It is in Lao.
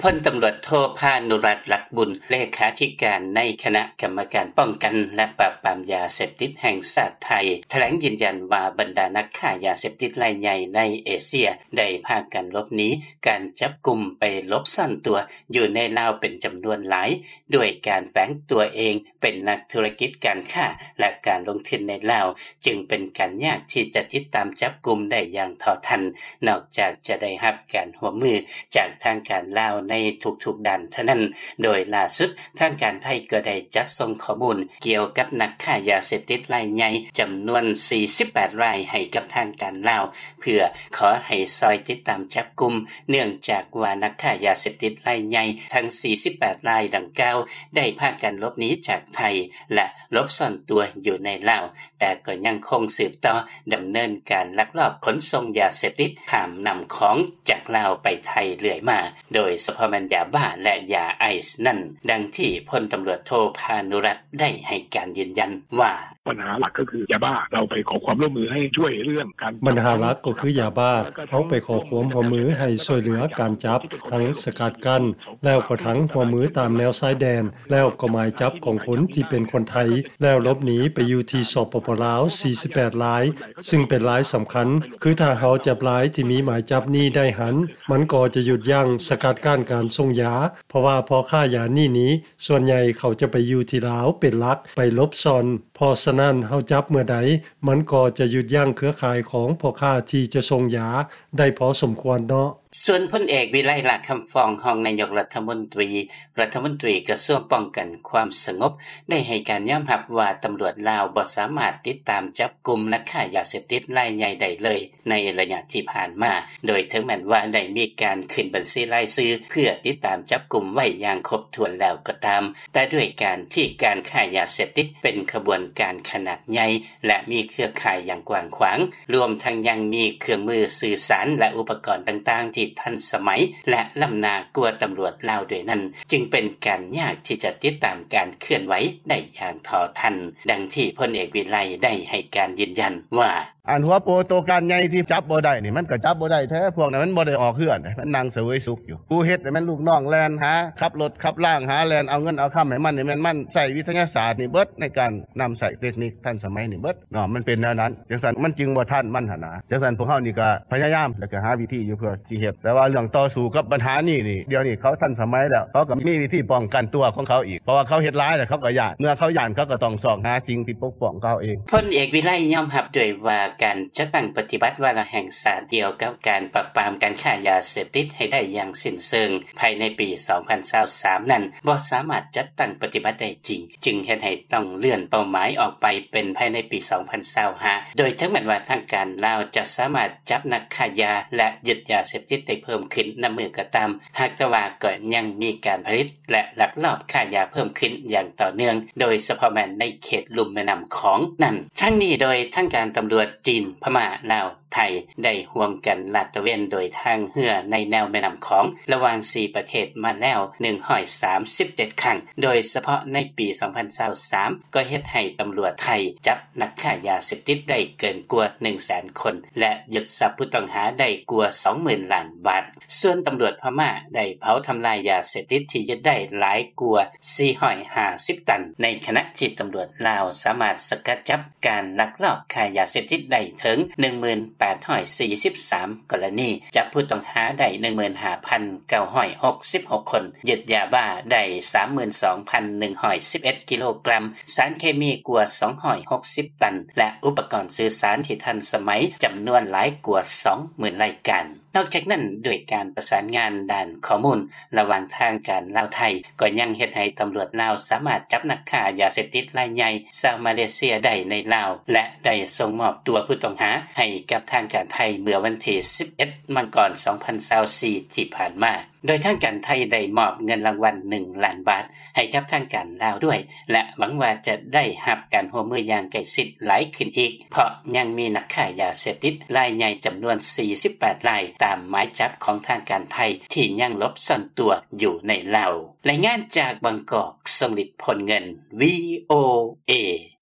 ພົນຕຳຫຼວດໂທ ພານຸລັດ ລັກບຸນ ເລຂາທິການໃນຄະນະກຳມະການປ້ອງກັນ ແລະ ປາບປາມຢາເສບຕິດແຫ່ງຊາດໄທ ຖະແຫຼງຢືນຢັນວ່າ ບັນດານັກຄ້າຢາເສບຕິດລາຍໃຫຍ່ໃນເອເຊຍ ໄດ້ພາກັນຫຼົບໜີການຈັບກຸມ ໄປຫຼົບຊ່ອນຕົວຢູ່ໃນລາວເປັນຈຳນວນຫຼາຍ ດ້ວຍການແຝງຕົວເອງເປັນນັກທຸລະກິດການຄ້າ ແລະ ການລົງທຶນໃນລາວ ຈຶ່ງເປັນການຍາກທີ່ຈະຕິດຕາມຈັບກຸມໄດ້ຢ່າງເທົ່າທັນ ນອກຈາກຈະໄດ້ຮັບການຮ່ວມມືຈາກທາງການລາວໃນທຸກໆດ້ານເທົ່ານັ້ນ. ໂດຍລ່າສຸດ ທາງການໄທກໍໄດ້ຈັດສົ່ງຂໍ້ມູນກ່ຽວກັບນັກຄ້າຢາເສບຕິດລາຍໃຫຍ່ຈຳນວນສີ່ສິບແປດລາຍໃຫ້ກັບທາງການລາວ ເພື່ອຂໍໃຫ້ຊ່ອຍຕິດຕາມຈັບກຸມ ເນື່ອງຈາກວ່ານັກຄ້າຢາເສບຕິດລາຍໃຫຍ່ທັງສີ່ສິບແປດລາຍດັ່ງກ່າວ ໄດ້ພາກັນຫຼົບໜີຈາກໄທ ແລະ ຫຼົບຊ່ອນຕົວຢູ່ໃນລາວ ແຕ່ກໍຍັງຄົງສືບຕໍ່ດຳເນີນການລັກລອບຂົນສົ່ງຢາເສບຕິດຂ້າມນ້ຳຂອງຈາກລາວໄປໄທເລື້ອຍມາ ໂດຍສະເພາະແມ່ນຢາບ້າ ແລະ ຢາໄອສ໌ນັ້ນ, ດັ່ງທີ່ພົນຕຳຫຼວດໂທ ພານຸລັດ ໄດ້ໃຫ້ການຢືນຢັນວ່າ: ບັນຫາຫຼັກກໍຄືຢາບ້າ ເຮົາໄປຂໍຄວາມຮ່ວມມືໃຫ້ຊ່ວຍເລື່ອງການ ບັນຫາຫຼັກກໍຄືຢາບ້າ ເຮົາໄປຂໍຄວາມຮ່ວມມືໃຫ້ຊ່ວຍເຫຼືອການຈັບ ທັງສະກັດກັ້ນ ແລ້ວກໍທັງຮ່ວມມືຕາມແນວຊາຍແດນ ແລ້ວກໍໝາຍຈັບຂອງຄົນທີ່ເປັນຄົນໄທ ແລ້ວຫຼົບໜີໄປຢູ່ທີ່ ສປປ ລາວ ສີ່ສິບແປດລາຍ ຊຶ່ງເປັນລາຍສຳຄັນ ຄືຖ້າເຮົາຈັບລາຍທີ່ມີໝາຍຈັບນີ້ໄດ້ຫັ້ນ ມັນກໍຈະຢຸດຢັ້ງສະກັດກັ້ນການສົ່ງຢາ ເພາະວ່າພໍ່ຄ້າຢານີ້ນີ້ ສ່ວນໃຫຍ່ເຂົາຈະໄປຢູ່ທີ່ລາວເປັນຫຼັກ ໄປຫຼົບຊ່ອນ ເພາະສະນັ້ນ ເຮົາຈັບເມື່ອໃດ ມັນກໍຈະຢຸດຢັ້ງເຄືອຂ່າຍຂອງພໍ່ຄ້າທີ່ຈະສົ່ງຢາໄດ້ພໍສົມຄວນເນາະ. ສ່ວນພົນເອກ ວິໄລ ຫຼ້າຄຳຟອງ ຮອງນາຍົກລັດຖະມົນຕີ ລັດຖະມົນຕີກະຊວງປ້ອງກັນຄວາມສະຫງົບ ໄດ້ໃຫ້ການຍອມຮັບວ່າ ຕຳຫຼວດລາວບໍ່ສາມາດຕິດຕາມຈັບກຸມນັກຄ້າຢາເສບຕິດລາຍໃຫຍ່ໄດ້ເລີຍ ໃນໄລຍະທີ່ຜ່ານມາ ໂດຍເຖິງແມ່ນວ່າໄດ້ມີການຂຶ້ນບັນຊີລາຍຊື່ເພື່ອຕິດຕາມຈັບກຸມໄວ້ຢ່າງຄົບຖ້ວນແລ້ວກໍຕາມ, ແຕ່ດ້ວຍການທີ່ການຄ້າຢາເສບຕິດເປັນຂະບວນການຂະໜາດໃຫຍ່ ແລະ ມີເຄືອຂ່າຍຢ່າງກວ້າງຂວາງ, ລວມທັງຍັງມີເຄື່ອງມືສື່ສານ ແລະ ອຸປະກອນຕ່າງໆທີ່ທັນສະໄໝ ແລະ ລ້ຳໜ້າກວ່າຕຳຫຼວດລາວດ້ວຍນັ້ນ, ຈຶ່ງເປັນການຍາກທີ່ຈະຕິດຕາມການເຄື່ອນໄຫວໄດ້ຢ່າງເທົ່າທັນ, ດັ່ງທີ່ພົນເອກ ວິໄລ ໄດ້ໃຫ້ການຢືນຢັນວ່າ: ອັນຫົວໂປໂຕການໃຫຍ່ທີ່ຈັບບໍ່ໄດ້ນີ້ ມັນກໍຈັບບໍ່ໄດ້ແທ້, ພວກນັ້ນມັນບໍ່ໄດ້ອອກເຮືອນເດ້, ມັນນັ່ງສະເຫວີຍສຸກຢູ່. ຜູ້ເຮັດນີ້ແມ່ນລູກນ້ອງແລ່ນຫາ ຂັບລົດຂັບລາງຫາ ແລ່ນເອົາເງິນເອົາຄຳໃຫ້ມັນນີ້ ແມ່ນມັນໃຊ້ວິທະຍາສາດນີ້ເບິດ ໃນການນຳໃຊ້ເຕັກນິກທັນສະໄໝນີ້ເບິດເນາະ, ມັນເປັນແນວນັ້ນ. ຈັ່ງຊັ້ນມັນຈຶ່ງບໍ່ທັນມັນຫັ້ນນະ. ຈັ່ງຊັ້ນພວກເຮົານີ້ກໍພະຍາຍາມ ແລ້ວກໍຫາວິທີຢູ່ເພື່ອ ຊິເຮັດ, ແຕ່ວ່າເລື່ອງຕໍ່ສູ້ກັບບັນຫານີ້ນີ້ ດຽວນີ້ເຂົາທັນສະໄໝແລ້ວ, ເຂົາກໍມີວິທີປ້ອງກັນຕົວຂອງເຂົາອີກ, ເພາະວ່າເຂົາເຮັດຫຼາຍແລ້ວເຂົາກໍຢ້ານ, ເມື່ອເຂົາຢ້ານເຂົາກໍຕ້ອງຊອກຫາສິ່ງທີ່ປົກປ້ອງເຂົາເອງ. ພົນເອກ ວິໄລ ຍອມຮັບດ້ວຍວ່າ ການຈັດຕັ້ງປະຕິບັດວາລະແຫ່ງຊາດກ່ຽວກັບການປາບປາມການຄ້າຢາເສບຕິດໃຫ້ໄດ້ຢ່າງສິ້ນເຊີງພາຍໃນປີສອງພັນຊາວສາມນັ້ນ ບໍ່ສາມາດຈັດຕັ້ງປະຕິບັດໄດ້ຈິງ, ຈຶ່ງເຮັດໃຫ້ຕ້ອງເລື່ອນເປົ້າໝາຍອອກໄປເປັນພາຍໃນປີສອງພັນຊາວຫ້າ ໂດຍເຖິງແມ່ນວ່າທາງການລາວຈະສາມາດຈັບນັກຄ້າຢາ ແລະ ຍຶດຢາເສບຕິດໄດ້ເພີ່ມຂຶ້ນນຳມື້ກໍຕາມ, ຫາກແຕ່ວ່າກໍຍັງມີການຜະລິດ ແລະ ລັກລອບຄ້າຢາເພີ່ມຂຶ້ນຢ່າງຕໍ່ເນື່ອງ, ໂດຍສະເພາະແມ່ນໃນເຂດລຸ່ມແມ່ນ້ຳຂອງນັ້ນ. ທັງນີ້ໂດຍທາງການຕຳຫຼວດຈີນ, ພະມ້າ, ລາວ, ໄທ ໄດ້ຮ່ວມກັນລາດຕະເວນໂດຍທາງເຮືອໃນແນວແມ່ນ້ຳຂອງ ລະຫວ່າງສີ່ປະເທດມາແລ້ວໜຶ່ງຮ້ອຍສາມສິບເຈັດຄັ້ງ, ໂດຍສະເພາະໃນປີສອງພັນຊາວສາມ ກໍເຮັດໃຫ້ຕຳຫຼວດໄທຈັບນັກຄ້າຢາເສບຕິດໄດ້ເກີນກວ່າໜຶ່ງແສນຄົນ ແລະ ຍຶດຊັບຜູ້ຕ້ອງຫາໄດ້ກວ່າສອງໝື່ນລ້ານບາດ. ສ່ວນຕຳຫຼວດພະມ້າໄດ້ເຜົາທຳລາຍຢາເສບຕິດທີ່ຍຶດໄດ້ຫຼາຍກວ່າສີ່ຮ້ອຍຫ້າສິບຕັນ, ໃນຂະນະທີ່ຕຳຫຼວດລາວສາມາດສະກັດຈັບການລັກລອບຄ້າຢາເສບຕິດໄດ້ເຖິງໜຶ່ງໝື່ນແປດຮ້ອຍສີ່ສິບສາມກໍລະນີ, ຈັບຜູ້ຕ້ອງຫາໄດ້ໜຶ່ງໝື່ນຫ້າພັນເກົ້າຮ້ອຍຫົກສິບຫົກຄົນ, ຍຶດຢາບ້າໄດ້ສາມໝື່ນສອງພັນໜຶ່ງຮ້ອຍສິບເອັດກິໂລກຣາມ, ສານເຄມີກວ່າສອງຮ້ອຍຫົກສິບຕັນ ແລະ ອຸປະກອນສື່ສານທີ່ທັນສະໄໝຈຳນວນຫຼາຍກວ່າສອງໝື່ນລາຍການ. ນອກຈາກນັ້ນ, ດ້ວຍການປະສານງານດ້ານຂໍ້ມູນລະຫວ່າງທາງການລາວ-ໄທ, ກໍຍັງເຮັດໃຫ້ຕຳຫຼວດລາວສາມາດຈັບນັກຄ້າຢາເສບຕິດລາຍໃຫຍ່ຊາວມາເລເຊຍໄດ້ໃນລາວ ແລະ ໄດ້ສົ່ງມອບຕົວຜູ້ຕ້ອງຫາໃຫ້ກັບທາງການໄທເມື່ອວັນທີສິບເອັດ ມັງກອນ ສອງພັນຊາວສີ່ ທີ່ຜ່ານມາ. ໂດຍທາງການໄທໄດ້ມອບເງິນລາງວັນໜຶ່ງລ້ານບາດໃຫ້ກັບທາງການລາວດ້ວຍ ແລະ ຫວັງວ່າຈະໄດ້ຮັບການຮ່ວມມືຢ່າງໃກ້ຊິດຫຼາຍຂຶ້ນອີກ, ເພາະຍັງມີນັກຄ້າຢາເສບຕິດລາຍໃຫຍ່ຈຳນວນສີ່ສິບແປດລາຍ ຕາມໝາຍຈັບຂອງທາງການໄທທີ່ຍັງຫຼົບຊ່ອນຕົວຢູ່ໃນລາວ. ລາຍງານຈາກບາງກອກ, ຊົງລິດ ພົນເງິນ, ວີໂອເອ.